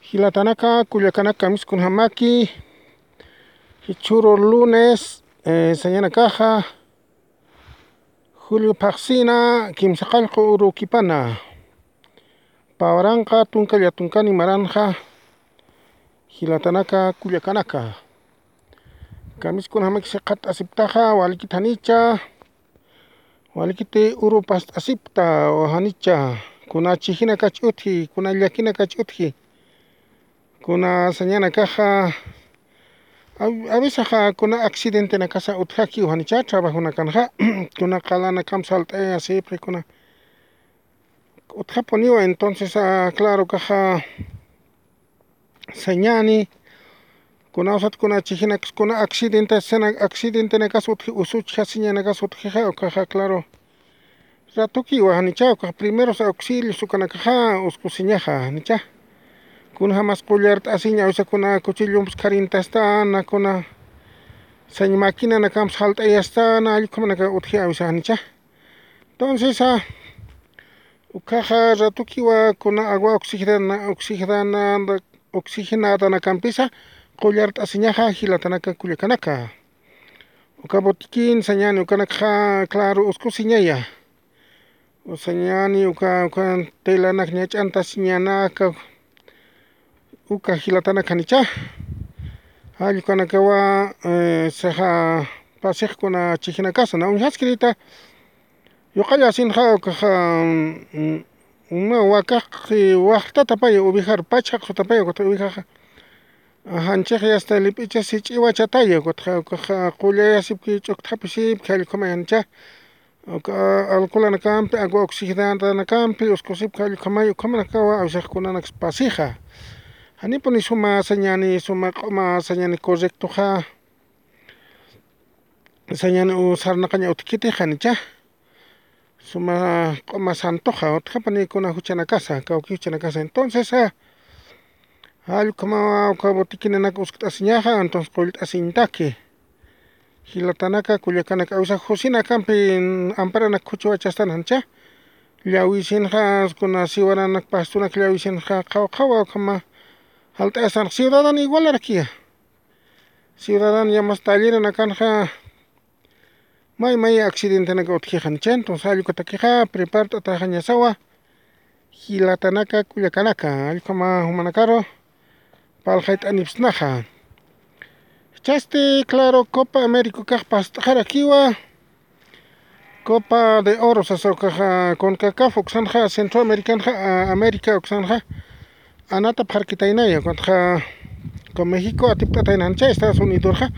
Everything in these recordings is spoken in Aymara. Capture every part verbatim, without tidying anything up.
Jilatanaka, kullakanaka, kamiskunjamaki, jichhüru lunes, eh, sañanakaxa, julio phaxsina, kimsaqallqu urukipana. Pä waranqa tunka llatunkani maranxa, jilatanaka, kullakanaka. Kamiskunjamaki siqat'asiptaxa, walikit janicha, walikiti uru past'asipta, janicha, kuna chijinakach utji, kuna llakinakach utji, kuna sañanakaxa, a, a veces kuna accidentenakasa utjakiw janicha, trabajonakanxa, kuna qalanakamp salt'ayasipxi, kuna utjapuniwa, entonces, ah, claro, kaxa, sañani, kuna usat kuna chijinaksa, kuna accidente, sena accidentenakas utji, usuchja siñanakas utjixa, ukaxa, claro. Ratukiwa janicha, ukax primeros auxilios ukanakaxa, uskusiñaxa, janicha. Kunjamas qullart'asiña, awisa kuna cuchillomps kharintastana, kuna sañ maquinanakamps jalt'ayastana, allkumanaka utji, awisa janicha. Entonces, ah, ukaxa ratukiwa kuna agua oxigenada, oxigenada, oxigenadanacampisa qullart'asiñaxa jilatanaka kullakanaka. Uka botiquín sañani ukanakxa, claro, uskusiñaya. Usañani uka, uka telanak ñach'antasiñanaka. Uka jilatanaka janicha. Jallkanakawa, eh, saxa pasix kuna chijinakasa, na uñjaskirita. Yuqallasinxa ukaxa, mm, uma wakax waxtatapaya, ovejar pachxaq sutapaya, ukatxa ovejaxa. Janchix yasta lip'icha sich'iwachataya, ukatxa, ukaxa qullayasipki, ch'ukthapisipki, jallkhamay janicha. Uka alcoholanakampi, agua oxigenadanakampi, uskusipki, jallkhamay, ukhamanakawa, awisax kunanaks pasixa. Janipuni suma sañani, suma q'uma sañani correctoxa. Sañani u sarnaqaña utjkiti janicha. Suma q'uma santoxa, utjapuni kuna juchanakasa, kawki juchanakasa. Entonces, ah, jallkhamawa uka botiquinanak uskt'asiñaxa, entonces qullt'asiñtaki. Jilatanaka, kullakanaka, awisa josinakampi amparanak khuchwachastan janicha. Llawisinxa, kuna siwaranak pastunak llawisinxa, qhaw qhawa ukhama jalt'ayastan, ciudadano igualarakiya. Ciudadano yamas talleranakanxa, may may accidentenaka utjixan, chay entonces allkutakixa prepart'ataxañasawa, jilatanaka, kullakanaka, allkama jumanakaru parlxayt'anipsnaxa. Chasti, claro, Copa América ukax past'xarakiwa, Copa de Oro sasa ukaxa, CONCACAF uksanxa, Centroamericanxa, a, América uksanxa, anatapxarkitaynaya, ukatxa, uka México atipt'atayna janicha, Estados Unidosxa.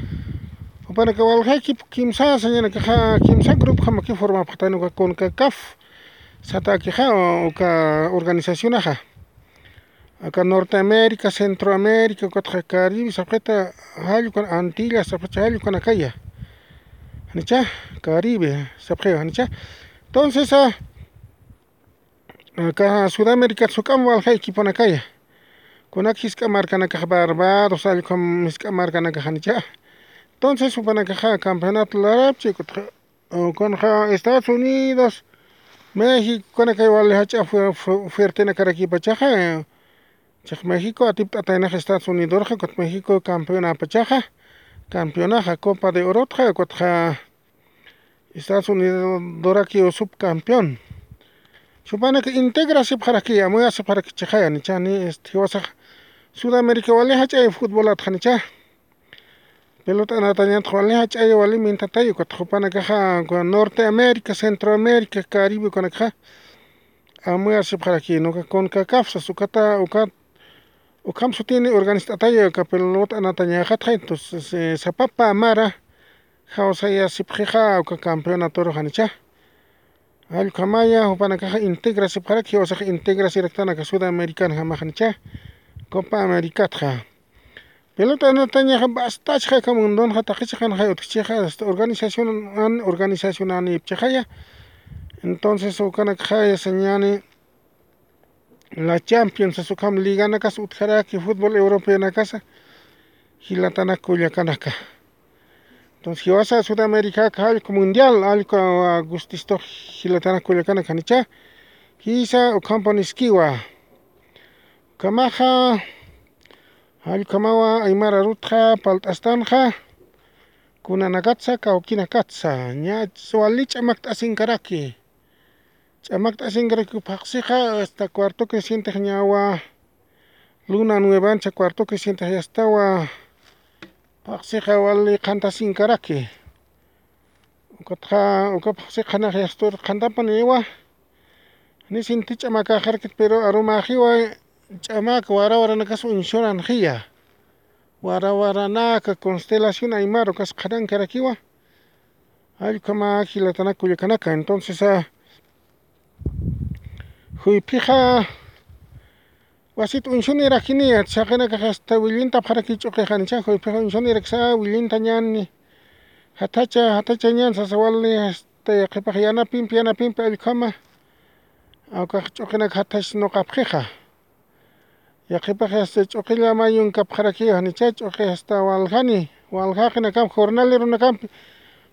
Jupanaka walja equipo kimsa sañanakaxa, kimsa grupjamaki formapxatayna uka CONCACAF satakixa, uka organizacionaxa. Aka Norteamérica, Centroamérica, ukatxa Caribe sapxita, jallkan Antillas sapxicha, jallkanakaya. Janicha, Caribe sapxiwa, janicha. Entonces, ah, aka Sudamérica juk'am walja equiponakaya. Kunak jisk'a markanakax, Barbados, allkam jisk'a markanakax, janicha. Entonces, jupanakaxa campeonato larapchi, ukatxa, ukanxa Estados Unidos, México, ukanakay wali jach'a fu-, fu-, fuertenakarakipachaxa, eh, chiq México atipt'ataynaxa Estados Unidorxa, ukat México campeonapachaxa, campeonaxa Copa de Orotxa, ukatxa Estados Unidorakiw subcampeón. Jupanaka integrasipxaraki, amuyasipxaraki chixaya, janichani, este, jiwasax Sudamérica wali jach'ay futbolatxa, janicha. Pelota anatañatxa wali jach'ay, wali mintatay, ukat jupanakaxa, uka Norteamérica, Centroamérica, Caribe ukanakaxa, amuyasipxaraki, uka CONCACAF sas, ukata, ukat, ukham sutini organizt'atay, uka pelota anatañaxatxa, entonces, eh, sapapa mara, jawsayasipxixa, uka campeonatoru, janicha. Allkamaya, jupanakaxa integrasipxaraki, jiwasax integrasiraktanaka Sudamericanjamax, janicha, Copa Americatxa. Pelota anatañaxa bastachxaka mundonxa, taqi chiqanxay utjchixa, hasta organización an, organización anipchixaya. Entonces, ukanakxaya sañani, la Champions, sas ukham liganakas utjaraki, fútbol europeonakasa, jilatanaka, kullakanaka. Entonces, jiwasa Sudamérica, allku mundial, allku, ah, gustistux, jilatanaka, kullakanaka, janicha, jisa, ukhampuniskiwa. Ukhamaxa, Jallkhamawa aymar arutxa palt'astanxa, kunanakatsa, kawkinakatsa, ña wali ch'amakt'asinkaraki. Ch'amakt'asinkaraki phaxsixa, hasta cuarto crecientex ñawa, luna nuevancha cuarto crecientex yastawa, phaxsixa wali qhantasinkaraki. Ukatxa, uka phaxsixa qhanax yastur qhantapaniwa. Ni sinti ch'amakaxarakit, pero arumaxiwa ch'amak wara waranakas uñsuranxiya. Wara waranaka constelación aymar ukas qhanankarakiwa. Jallkhama jilatanak kullakanaka. Entonces, ah, juyphixa wasit uñsunirakiniya, saqinakax hasta willintapxaraki ch'uqixanicha, juyphixa uñsuniraksa willintañani. Jathacha, jathachañan sasa wali, hasta yaqhipax yanapimpi, yanapimpi jallkhama. Awkax ch'uqinak jathach nuqapxixa. Yaqhipax hasta ch'uqilla mayunkapxarakiwa janicha, ch'uqi hasta waljani, waljaqinakampi, jornaleronakampi.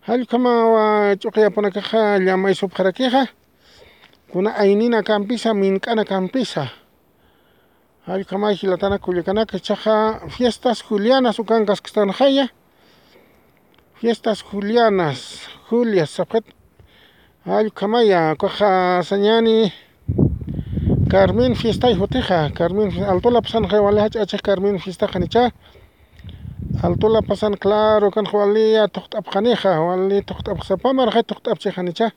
Jallkhamawa ch'uqiyapunakaxa llamaysupxarakixa. Kuna ayninakampisa, mink'anakampisa. Jallkhamay jilatanak kullakanaka, ichaxa fiestas julianas ukankasktanxaya. Fiestas julianas, Julias sapxit. Jallkhamaya, ukaxa sañani Carmen fiestay jutixa, Carmen fi-, Alto La Pazanxa wali jach'achix Carmen fiestaxanicha. Alto La Pazan, claro, ukanxa wali thuqt'apxanixa, wali thuqt'apxsapamaraxay thuqt'apchixanicha.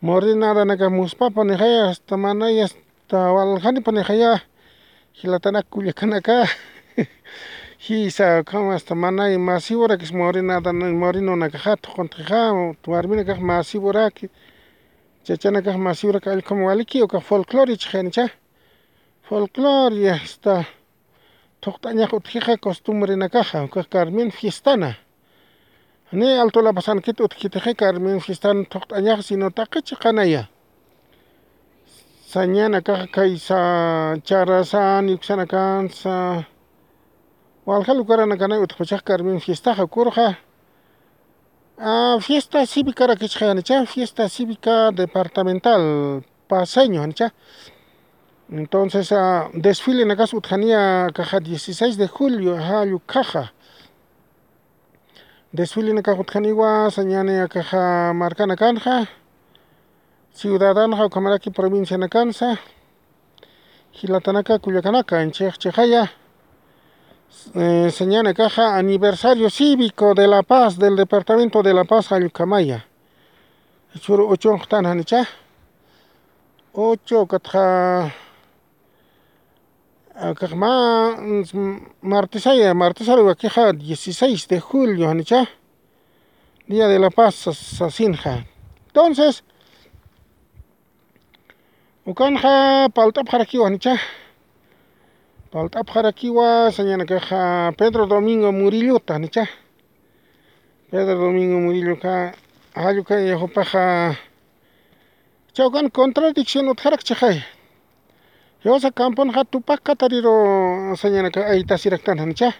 Morinadanaka muspapanixaya, hasta manaya, hasta waljanipanixa ya, jilatanak kullakanaka. Jisa, ukhama hasta manay masiwrakis morinadan, morinonakaxa thuquntixa, warminakax masiwraki, chachanakax masiwraki, jallkhama waliki, ukax folclore ichxanicha. Folclore, hasta thuqt'añax utjixa costumbrenakaxa, ukax Carmen fiestana. Ni Alto La Pazankit utjkitixa Carmen fiestan thuqt'añax, sino taqi chiqanaya. Sañanakaxa kaysa, charasan, yuksanakansa, walja lugaranakanay utjpachax Carmen fiestaxa, ukurxa, ah, fiesta cívicarak ichxanicha, fiesta cívica departamental paceño janicha. Entonces, ah, desfilenakas utjaniya akaxa dieciséis de julio, jallukhaxa. Desfilenakax utjaniwa, sañani akaxa markanakanxa, ciudadanxa, ukhamaraki provincianakansa, jilatanaka kullakanaka, anchix chixaya, eh, sañani akaxa aniversario cívico de La Paz, del departamento de La Paz, jallukhamaya. Jichhüru uchunxtan janicha. Uchu, ukatxa, akax mä, mm, martesaya, martesaru wakixa dieciséis de julio janicha. Día de La Paz sas-, sasinxa. Entonces, ukanxa palt'apxarakiwa janicha. Palt'apxarakiwa, sañanakaxa Pedro Domingo Murillota janicha. Pedro Domingo Murilloka, jallukaya jupaxa, chawkan contradicción utjarakchixay. Jiwasa camponxa Tupac Katariru sañanaka aytasiraktan janicha.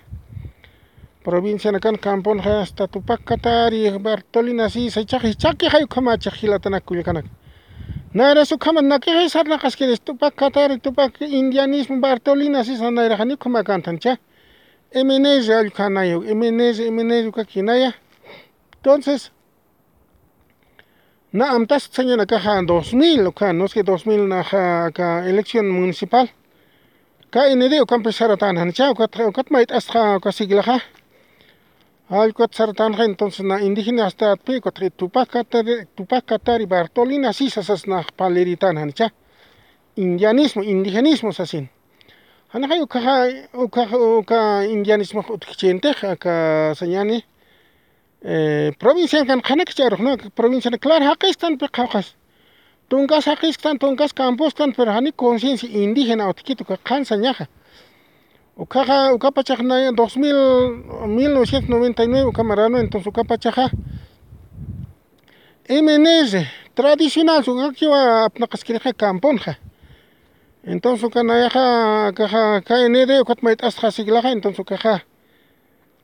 Provincianakan camponxa hasta Tupac Katari, Bartolina Sisa, ichaxa jichhakixay ukhamachix jilatanak kullakanaka. Nayras ukhama nakixay sarnaqaskiris Tupac Katari, Tupac indianismo, Bartolina Sisa nayraxa ni ukhamakantan cha. M N R allkhanaya, M N R, M N R ukakinaya. Entonces, na amtast sañanakaxa dos mil, uka, no es que dos mil naxa aka elección municipal. K N D ukampi saratan janicha, ukat, ukat mayt'astxa uka siglaxa. Allkut saratanxa, entonces na indígena astatpi, ukat Tupac Katari, Tupac Katari Bartolina Sisa sas nax paliritan janicha. Indianismo, indigenismo sasin. Janixa ukaxa, ukaxa, uka indianismox utjkchintix, aka sañani, eh, provincianakan qhanakch'arux, ¿no? Provinciana, claro, jaqisktan pi qhawqas. Tunkas jaqisktan, tunkas camposktan, pero jani conciencia indígena utjkit uka qhan sañaxa. Ukaxa, ukapachax naya dos mil, mil novecientos noventa y nueve uka marano, entonces ukapachaxa M N R, tradicional, ukakiwa apnaqaskirixa camponxa. Entonces uka nayaxa, akaxa K N D, ukat mayt'astxa siglaxa, entonces ukaxa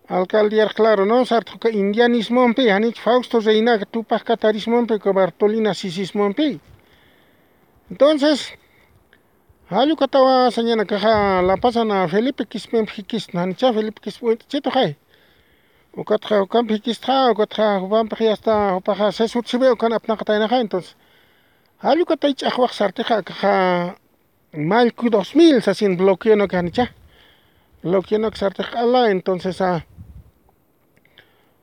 alcaldía, claro, ¿no? Sartxa uka indianismompi, janich Fausto Reinaga, Tupac Katarismompi, uka Bartolina Sisismompi. Entonces, Jallukatawa sañanakaxa La Pazan Felipe Quispempi jikistna, janicha Felipe Quispe uñt'chituxay. Ukatxa ukampi jikistxa, ukatxa jupampix yasta jupaxa sesutsewe ukan apnaqataynaxa, entonces. Jallukatay ch'axwax sartixa akaxa mallku dos mil sasin bloqueonaka janicha. Bloqueonaka sartix q'ala, entonces, a,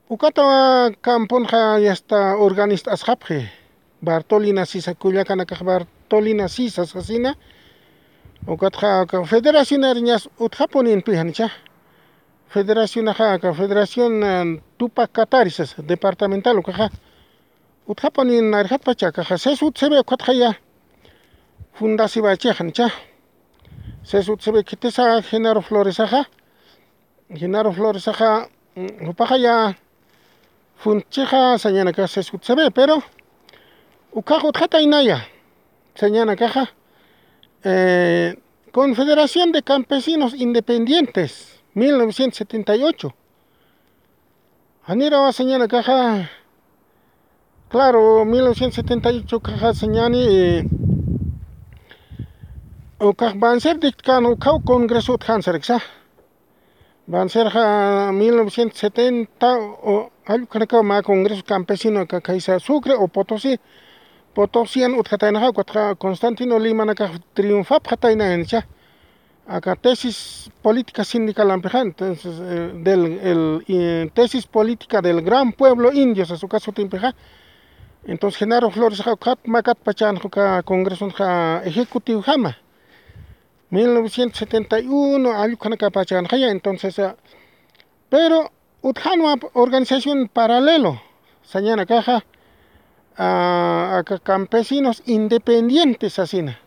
ukatawa camponxa yasta organist'asxapxi. Bartolina Sisa, kullakanakax Bartolina Sisa sasina. Ukatxa aka federacionariñas utjapuninpi janicha. Federacionaxa aka federación, eh, Tupac Katari sasa, departamental ukaxa. Utjapunin narjatpacha akaxa, sesutsewe ukatxaya. Fundasiwachix janicha. Sesutsewe khitisa Genaro Floresaxa. Genaro Floresaxa, mm, jupaxaya funtchixa sañanakax sesutsewe, pero ukax utjataynaya sañanakaxa, eh, Confederación de Campesinos Independientes, mil novecientos setenta y ocho. Janirawa sañanakaxa, claro, mil novecientos setenta y ocho kaxa sañani, eh, ukax Banzer dictkän ukaw congreso utjän sarksa. Banzerxa mil novecientos setenta o, jallukhanakaw mä congreso campesino aka khaysa Sucre o Potosí, Potosian utjataynaxa, ukatxa Constantino Limanakax triunfapxatayna janicha. Aka tesis política sindicalampixa, entonces, eh, del, el, eh, tesis política del gran pueblo indio, sas uka sutimpixa. Entonces, Genaro Floresaxa ukat makatpachänxa uka congresonxa ejecutivojama. Mil novecientos setenta y uno, jallukhanakapachänxaya, entonces, ah, pero utjänwa organización paralelo, sañanakaxa, ah, aka campesinos independientes sasina.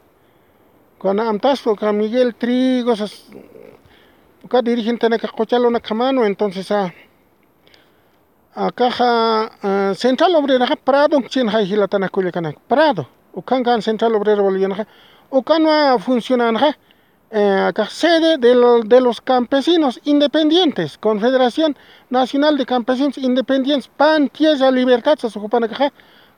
Kuna amtastu, aka Miguel Trigo, sas, uka dirigentenaka quchalunakjamanwa, entonces, ah, akaxa, ah, Central Obreraxa Pradon chinxay jilatanak kullakanak. Prado, ukan kan Central Obrera Bolivianaxa, ukanwa funcionanxa, eh, akax sede de lo-, de los campesinos independientes, Confederación Nacional de Campesinos Independientes, Pan Tierra Libertad, sas jupanakaxa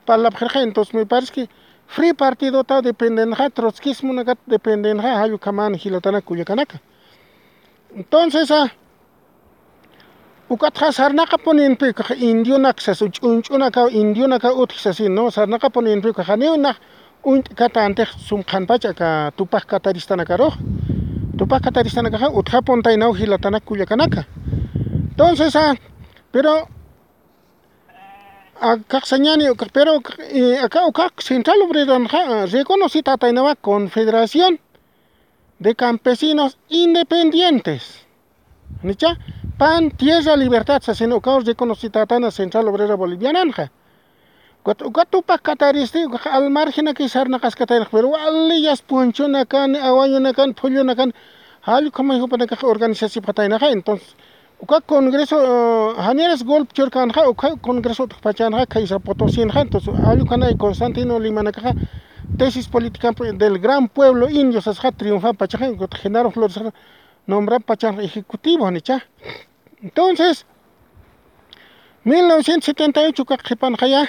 parlapxirxa, entonces me parece que Free Partidota dependenxa, trotsquismonakat dependenxa, jallukhaman jilatanak kullakanaka. Entonces, ah, ukatxa sarnaqapuninpi, ukax indionak sas, ch'unch'unakaw, indionakaw utji sasin, ¿no? Sarnaqapuninpi, ukax janiw nax uñt'katantix sum qhanpacha aka Tupac Kataristanakaruxa. Tupac Kataristanakaxa utjapuntaynaw jilatanak kullakanaka. Entonces, ah, pero, akax sañani, ukax, pero, eh, aka, ukax Central Obreranxa, ah, reconocitätaynawa Confederación de Campesinos Independientes. Janicha, Pan Tierra Libertad sasin ukaw reconocitätayna Central Obrera Boliviananxa. Ukat, ukat Tupac Kataristi, ukax al margenaki sarnaqaskataynax, pero wali yasta punchunakan, awañunakan, phullunakan, jallukhamay jupanakax organizasipxataynaxa, entonces, uka congreso, eh, janiras golpe churkänxa, uka congreso utjpachänxa, khaysa Potosinxa, entonces, jallukhanay Constantino Limanakaxa, tesis política del gran pueblo indio sasxa triunfapachaxa, Genaro Flores nombrapachanxa ejecutivo, janicha. Entonces, mil novecientos setenta y ocho ukax qhipanxaya,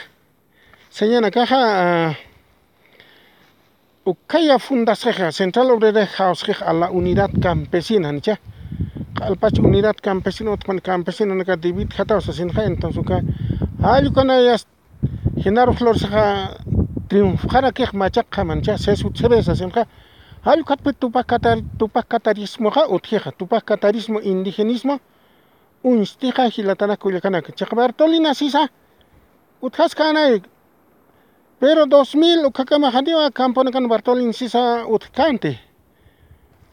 sañanakaxa, ah, ukhaya fundasxixa, Central Obrera jawsxix a la Unidad Campesina, janicha. Q'alpach Unidad Campesina, utjpan campesinonaka dividjataw sasinxa, entonces uka, jallukhanayas Genaro Floresaxa triunfxarakix machaqjama, janicha, sesutsewe sasinxa. Jallukhatpi Tupac Katar-, Tupac Katarismoxa utjixa, Tupac Katarismo indigenismo uñstixa jilatanak kullakanaka. Chiqa Bartolina Sisa utjaskänay, pero dos mil ukhakama janiwa camponakan Bartolina Sisa utjkänti.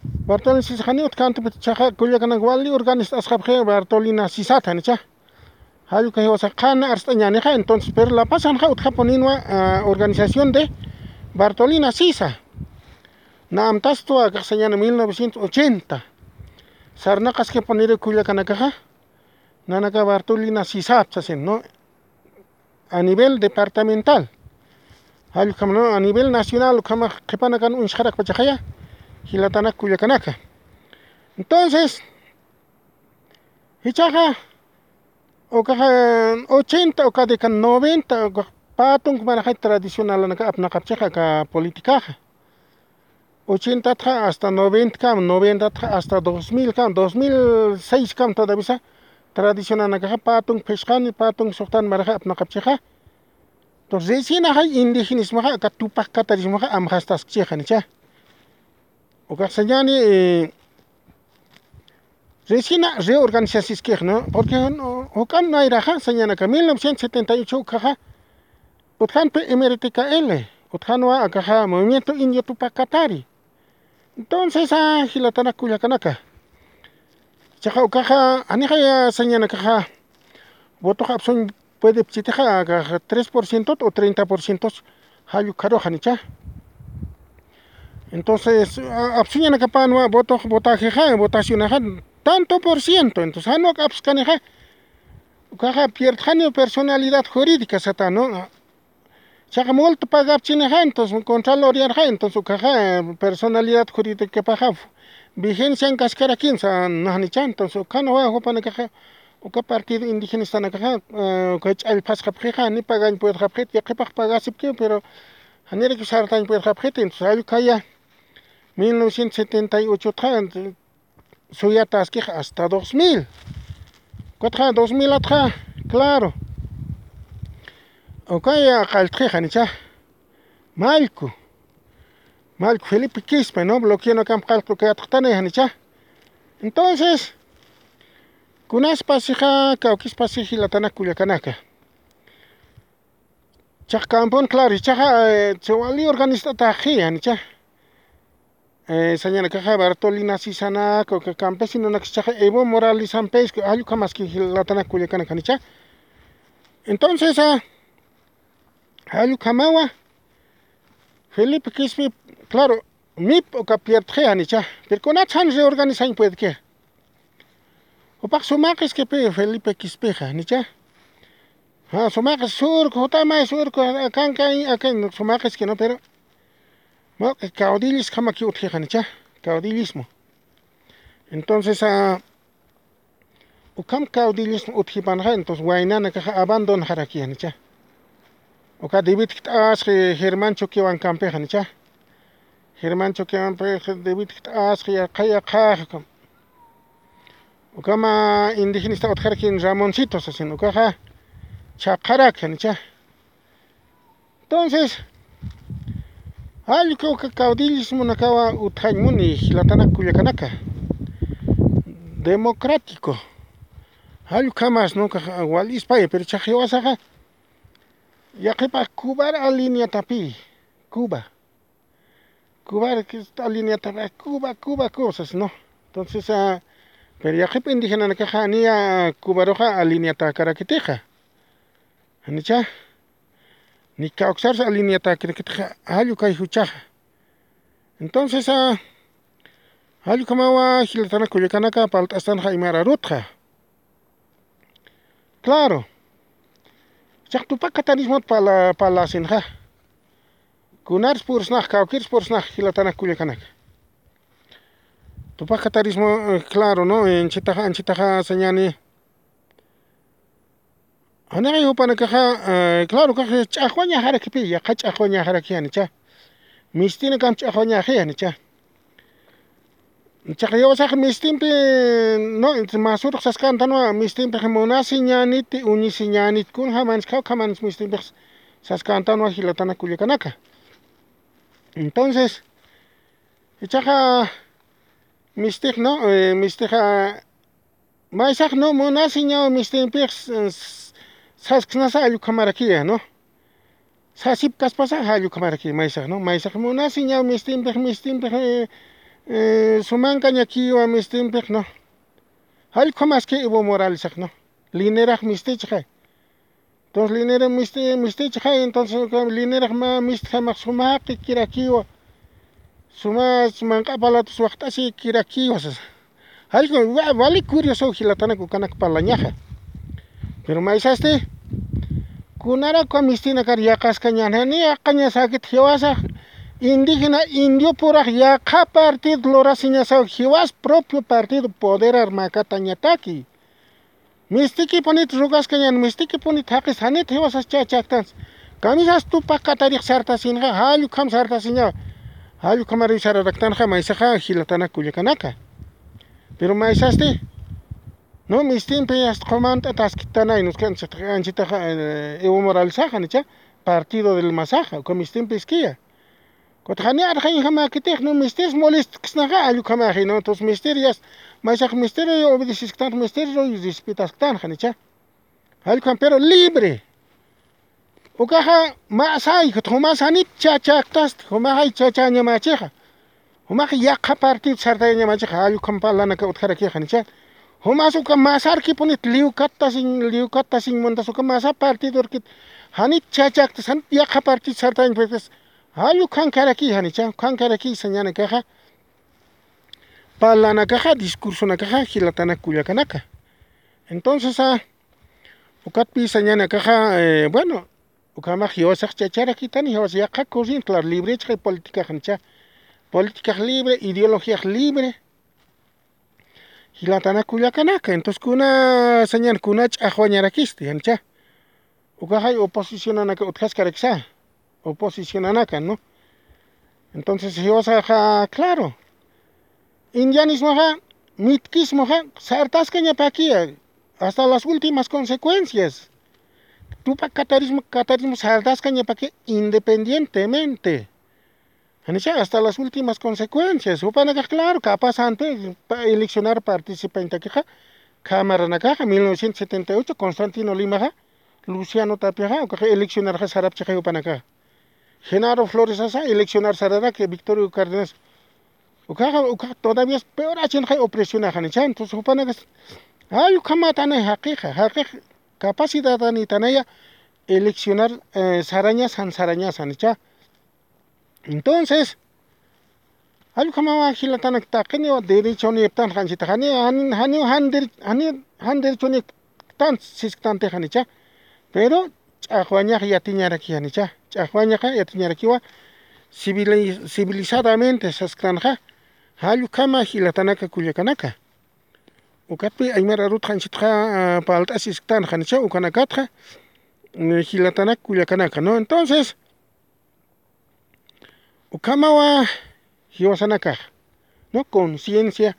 Bartolina Sisa janiw utjkänti, pero chiqa kullakanak wali organist'asxapxi Bartolina Sisat, janicha. Jallukay jiwasa qhan arst'añänixa, entonces, pero La Pazanxa utjapuninwa, ah, organización de Bartolina Sisa. Na amtastu akax sañani mil novecientos ochenta. Sarnaqaskipuniru kullakanakaxa, nanaka Bartolina Sisap sasin, ¿no? A nivel departamental. Jallukham, ¿no? A nivel nacional, ukhama qhipanakan uñsxarakpachaxaya, jilatanak kullakanaka. Entonces, jichhaxa, ukaxa ochenta, uka década noventa, ukax pä tunk maraxay tradicionalanaka apnaqapchixa aka politicaxa. ochenta txa hasta noventa kam, noventa txa hasta dos mil kam, dos mil seis kam todavía tradicionanakaxa patung phisqani, patung suxtan maraxa apnaqapchixa. Entonces, resinaxa indígenismaxa, aka Tupac Katarismaxa amxastaskchixa, ¿no? Ukax sañani, eh, resina reorganizasiskix, ¿no? Porque, ¿no? Ukan nayraxa, sañanaka mil novecientos setenta y ocho ukaxa, utjanpi M R T K L, utjanwa akaxa Movimiento Indio Tupac Katari. Entonces, ah, jilatanak kullakanaka. Chaqa ukaxa, anixaya sañanakaxa, votox apsuñ puede pchitixa, akaxa tres por ciento o treinta por ciento, jallu karuxa, ¿no? Entonces, a-, apsuñanakapanwa votox, votajexa, votacionaxa, tanto por ciento. Entonces, janwa apskanixa, ukaxa pierdxani personalidad jurídica sata, ¿no? Chaqa multa pagapchinixa, entonces, contraloría, entonces, ukaxa, eh, personalidad jurídicapaxa vigencian kaskarakinsa, ¿no? ¿No? Entonces, ukanwa jupanakaxa, uka partido indigenastanakaxa, eh, uka ch'allpasqapxixa, ni pagañ puedxapxit, yaqhipax pagasipki, pero janiraki sartañ puedxapxit, entonces, allukaya, mil novecientos setenta y ocho txa, entonces, suyataskix hasta dos mil. Kutxa dos mil atxa, claro. Ukaya qalltxixa, ¿no? Mallku. Mallku Felipe Quispe, ¿no? Bloqueonakam qalltx ukayatxtani, ¿no? Entonces, kunaspasixa, kawkispasix jilatanak kullakanaka. Chaqa campon, claro, chaqa, eh, chiwali organizataxi, ¿no? Eh, sañanakaxa Bartolina Sisanak, uka campesinonak, chaqa Evo Morales Sampesko, jallukamaski jilatanak kullakanaka, ¿no? Entonces, ah, jallukamawa, Felipe Quispe, claro, mip uka pierdxi, ¿no? Pero kunatsan reorganizañ puedki. Jupax sumaqiskipi Felipe Quispexa, ¿no? Ja, sumaqis surco, jutamay surco, akankañ, akan sumaqiski, ¿no? Pero, ¿no? Caudillisjamaki utjixa, ¿no? Caudillismo. Entonces, ah, ukham caudillismo utjipanxa, entonces, waynanakaxa abandonxarakixa, ¿no? Uka David Kt'asqi Germán Choquewan campexa, ¿no? Germán Choquewan, pues, David Kt'asqi, yaqha, yaqha, ukhama indigenista utjaraki Ramoncito sasin, ukaxa chhaqharakxa, ¿no? Entonces, jallku uka caudillismonakawa utjañ muni, jilatanak kullakanaka. Democrático. Jallukhamas, ¿no? Ukax wal ispaya, pero chaqa jiwasaxa, yaqhipax Cubar alineatapi, Cuba. Cubar alineatapi, Cuba, Cuba, Cuba, sas, ¿no? Entonces, ah, pero yaqhip indigenanakaxa niya Cubaruxa alineatakarakitixa. ¿No? Ni kawksars alineatakarakitixa, jallukay juchaxa. Entonces, ah, jallukhamawa, jilatanak kullakanaka, palt'astanxa aymar arutxa. Claro. Chaqa Tupac Katarismot pala-, parlasinxa. Kunars pursnax, kawkirs pursnax, jilatanak kullakanaka. Tupac Katarismo, eh, claro, ¿no? Anchitaxa, anchitaxa sañani. Janixa jupanakaxa, eh, claro, ukax ch'axwañaxarakipi, yaqha ch'axwañaxaraki, ¿no? Mistinakam ch'axwañaxi, ¿no? Chaqa jiwasax mistimpi, ¿no? Masurux saskantanwa, mistimpix munasiñäniti, uñisiñäniti, kunjamansi, kawkjamansi mistimpix saskantanwa, jilatanak kullakanaka. Entonces, ichaxa mistix, ¿no? Eh, mistixa, maysax, ¿no? Munasiñaw mistimpix, s-, s-, sasksnasa, jallukhamarakiya, ¿no? Sasipkaspasa, jallukhamaraki maysax, ¿no? Maysax munasiñaw mistimpix, mistimpix, eh, eh, sumankañakiwa mistimpix, ¿no? Jallukamaski Evo Moralesax, ¿no? Linerax mistichxa. Entonces, linera misti-, mistichxa, entonces, uka linerax mä mistjamax sumaqikirakiwa. Suma manq'a palatus waxt'asikirakiwa, sasa. Jallku, wa-, wali curioso, jilatanak ukanak parlañaxa. Pero maysasti, kunarakwa mistinakar yaqaskañäni, yaqañasäkit jiwasax, indígena, indiopurax yaqha partido lurasiñasaw, jiwas propio partido poderar makatañataki. Mistikipunit rugaskañän, mistikipunit jaqis, janit jiwasas chachaktansa. Kamisas Tupac Katarix sartasinxa, jallukham sartasiñawa. Jall ukhamar sararaktanxa maysaxa jilatanak kullakanaka. Pero maysasti, no, mistimpi asta qumant'atasktanay, nuskan anchitaxa, eh, Evo Moralesaxa, janicha, partido del masaxa, uka mistimpi iskiya. Kutxa jani arxañjamäkitix, no, mistis molestksnaxa, jall ukhamaxi, no, entonces mistir yasta, maysax mistir obedecisktan, mistir respetastan, janicha. Jall ukham, pero libre. Ukaxa masay, jumas janit chachäktasti, jumaxay chachañamachixa. Jumax yaqha partido sartayañamachixa, jall ukham parlanaka utjarakix, janicha. Jumas uka masarkipunit liwkattasiñ, liwkattasiñ muntas uka masa partido urkit. Janit chachäktas, janit yaqha partido sartayañapakitas. Jall ukhankaraki, janicha, ukhankaraki sañanakaxa. Parlanakaxa, discursonakaxa, jilatanak kullakanaka. Entonces, ah, ukatpï sañanakaxa, eh, bueno, ukhamax jiwasax chacharakitani, jiwas yaqha corriente, claro, libre chaqay política, janicha. Políticax libre, ideologiax libre. Jilatanak kullakanaka, entonces kuna sañan, kuna ch'axwañarakisti, janicha. Ukaxay oposicionanaka utjaskarakisa. Oposicionanaka, ¿no? Entonces, jiwasaxa, claro. Indianismoxa, mitkismoxa, sartaskañapakiya, hasta las últimas consecuencias. Tupak katarismo, katarismo sartaskañapakiya independientemente. Janicha, hasta las últimas consecuencias. Jupanakax, claro, capaz antes, pa-, eleccionar participañtakixa, cámaranakaxa, mil novecientos setenta y ocho, Constantino Limaxa, Luciano Tapiaxa, ukaxa eleccionarxa sarapchixa jupanakaxa. Genaro Floresasa, eleccionar sararaki, Victorio Cárdenas. Ukaxa, ukaxa todavía es peor achinxa opresionaxa, janicha. Entonces, jupanakas, ay, ukhamatanay jaqixa, jaqix capacidadanitanaya eleccionar, eh, sarañas, jan sarañas, janicha. Entonces, jall ukhamawa jilatanak taqiniw derechonïptan, janchita, jani, jani, jani, jan dere-, jani, jan derechonïptan, sisktantix, janicha. Pero ch'axwañax yatiñaraki, janicha. Ch'axwañaxa yatiñarakiwa civili-, civilizadamente sasktanxa, jall ukhama jilatanaka kullakanaka. Ukatpï aymar arutxa anchitxa, ah, parlt'asisktan, janicha, ukanakatxa, eh, jilatanak kullakanaka, ¿no? Entonces, ukhamawa jiwasanakax, ¿no? Conciencia,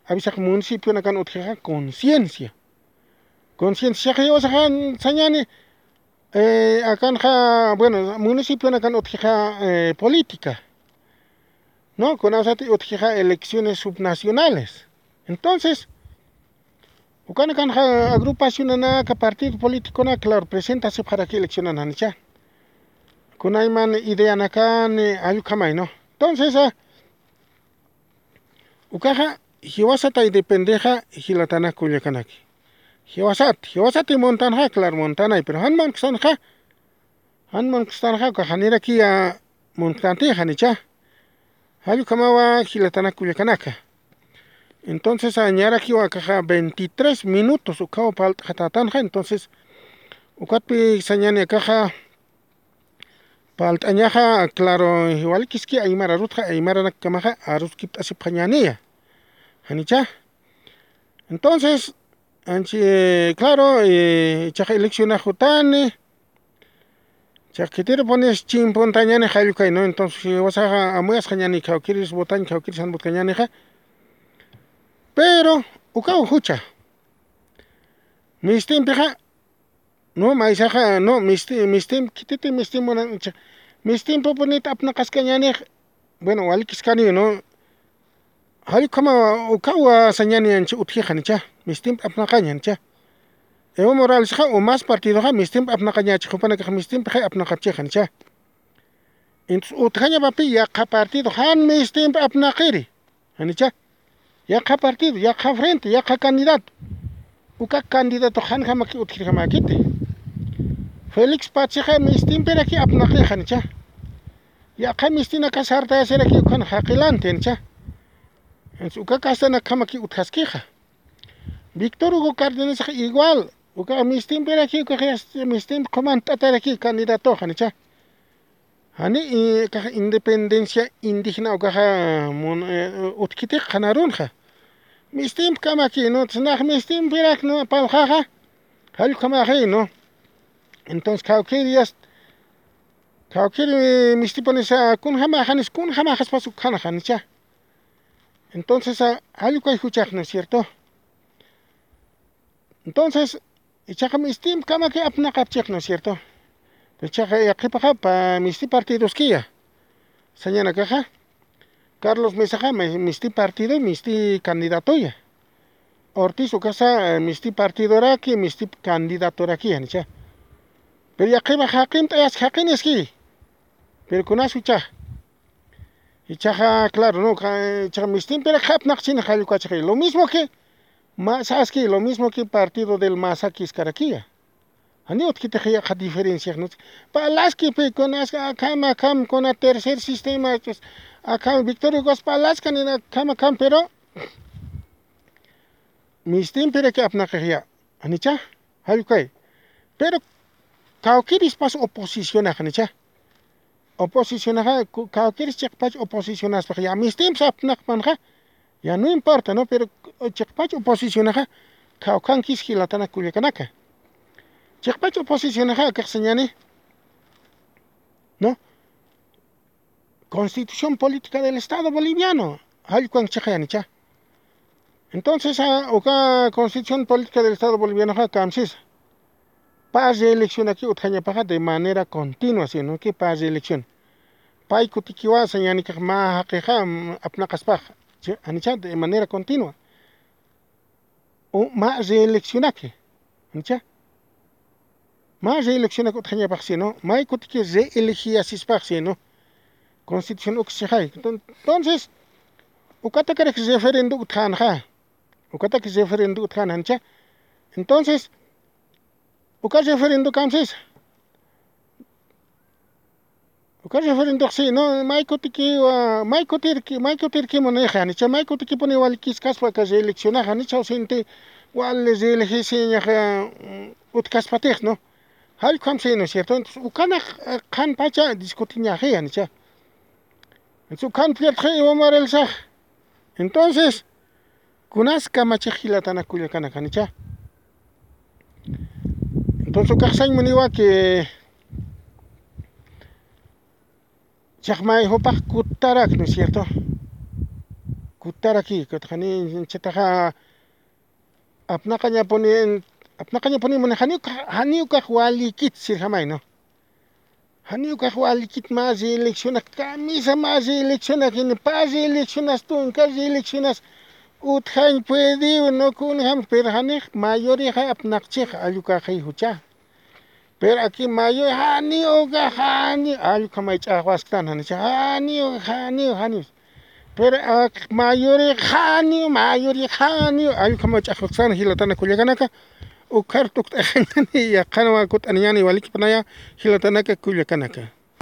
avisax municipionakan utjixa conciencia. Conciencia jiwasaxa sañani, eh, akanxa, bueno, municipionakan utjixa, eh, política, ¿no? Kunasati utjixa elecciones subnacionales. Entonces, ukanakanxa agrupacionanaka, partido políticonaka, claro, presentasipxaraki eleccionan, janicha. Kunayman ideanakani, jall ukhamay, ¿no? Entonces, ah, ukaxa, jiwasatay dependexa, jilatanak kullakanaki. Jiwasat, jiwasati muntanxa, claro, muntanay, pero jan munkstanxa, jan munkstanxa, ukax janirakiya munktanti, janicha. Jall ukhamawa jilatanak kullakanaka. Entonces, ah, ñarakiwa akaxa veintitrés minutos ukhaw parlt'xatätanxa, entonces, ukatpï sañani akaxa parlt'añaxa, claro, walikiski aymar arutxa, aymaranakamaxa aruskipt'asipxañäniya. Janicha. Entonces, anchi, claro, eh, ichaxa eleccionax jutani, Chaq khitirupuniw chimpuntañäni jall ukhay, ¿no? Entonces, jiwasaxa amuyasxañäni, kawkïris votañ, kawkïris jan votkañänixa. Pero, ukaw jucha. Mistimpixa, no, maysaxa, no, misti-, mistim, khititi mistim munan, cha-, mistimpupunit apnaqaskañänix, bueno, walikiskaniw, ¿no? Jall ukhama ukaw sañäni anchi utjixa, janicha. Mistimp apnaqañ, janicha. Evo Moralesxa umas partidoxa mistimp apnaqañächi, jupanakax mistimpixay apnaqapchixa, janicha. Entonces, utjañapapï yaqha partido, jan mistimp apnaqiri, janicha. Yaqha partido, yaqha frente, yaqha candidato. Uka candidatox janjamaki utjirjamäkiti. Félix Patzixa mistimpiraki apnaqi, janicha. Yaqha mistinaka sartayasiraki ukan jaqilanti, janicha. Entonces, uka castanakjamaki utjaskixa. Víctor Hugo Cárdenas igual, uka mistimpiraki, uka mistimp qhumantataraki candidatoxa, janicha. Jani, eh, ukax independencia indígena ukaxa mun-, eh, utjkitix qhanarunxa. Mistimpkamakiw, ¿no? Nax mistimpirak, ¿no? Parlxaxa, jall ukhamaxi, ¿no? Entonces, kawkïriyas Kawkiri mistipunisa kunjamaxanis kunjamaxaspas ukxanaxanicha. Entonces allukay juchaxna, ¿cierto? Entonces ichaqa mistimp kamaki apnaqapchixna, ¿cierto? Ichaqa yaqhipaxapa misti partidoskiya sañanakaxa. Carlos Mesaxa misti partido misti candidatoya. Ortiz ukasa misti partidoraki misti candidatoraki janicha. Pero yaqhipax jaqin t'ayas jaqiniski. Pero kunas juchax ichaxa claro no ichaxa mistimpirak apnaqchini jallukachixi lo mismo que masaski lo mismo que partido del masakis karakiya. Janiw utjkitixi yaqha diferenciaxnus. Parlaski pikun askha akham akham kuna tercer sistema akham victoria gas parlaskani akham akham pero mistimpirak apnaqixiya. Janicha jallukay. Pero kawkirispas oposicionax janicha. Oposicionaxa kawkiris chiqpach oposicionaspax ya mistimps apnaqpanxa. Ya no importa no pero chiqpach oposicionaxa kawkankis jilatanak kullakanaka. Chiqpach oposicionaxa akaxsañani no constitución política del estado boliviano jallkuwan chiqayanicha. Entonces uka constitución política del estado bolivianoxa kamsisa pa reeleccionaki utjañapaxa de manera continua sino que pa reelección. Pay kutikiwa sañanikax mä jaqixa apnaqaspax janicha de manera continua. Mä reeleccionaki janicha. Mä reeleccionaki utjañapax sino may kutiki reelegiyasispax sino constitución uksixay. Entonces ukatakarak referendo utjanxa. Ukataki referendo utjan janicha. Entonces uka referendo kamsisa. Uka referendox sino may kutikiwa may kutirki may kutirkimunix janicha may kutikipuni walikiskaspa aka reeleccionax janicha usinti wali reelegisiñaxa. Utkaspatix no jallkham sino cierto entonces ukanax qhanpacha discutiñaxi janicha. Entonces ukan pierdxi iwamarelsax. Entonces kunas kamachix jilatanak kullakanak janicha. Entonces ukaxsañ muniwa que chaqmay jupax kutarak no cierto. Kutaraki kutxani chataxa apnaqañapuni apnaqañapuni muni janiw janiw kax walikit sirjamay no. Janiw kax walikit mä reeleccionak kamisa mä reeleccionak ini pa reeleccionas tunka reeleccionas utjañ puediw no kunjam pero janix mayorixa apnaqchix allukaxi jucha. Pero aki mayoy janiw uka janiw allukhamay ch'axwasktan janicha janiw janiw janiw. Pero ak mayori janiw mayori janiw allukhamay ch'axwasktan jilatana kullakanaka. Ukhar tukt'axañani yaqhanwa kut'aniñani walikipanaya jilatanaka kullakanaka.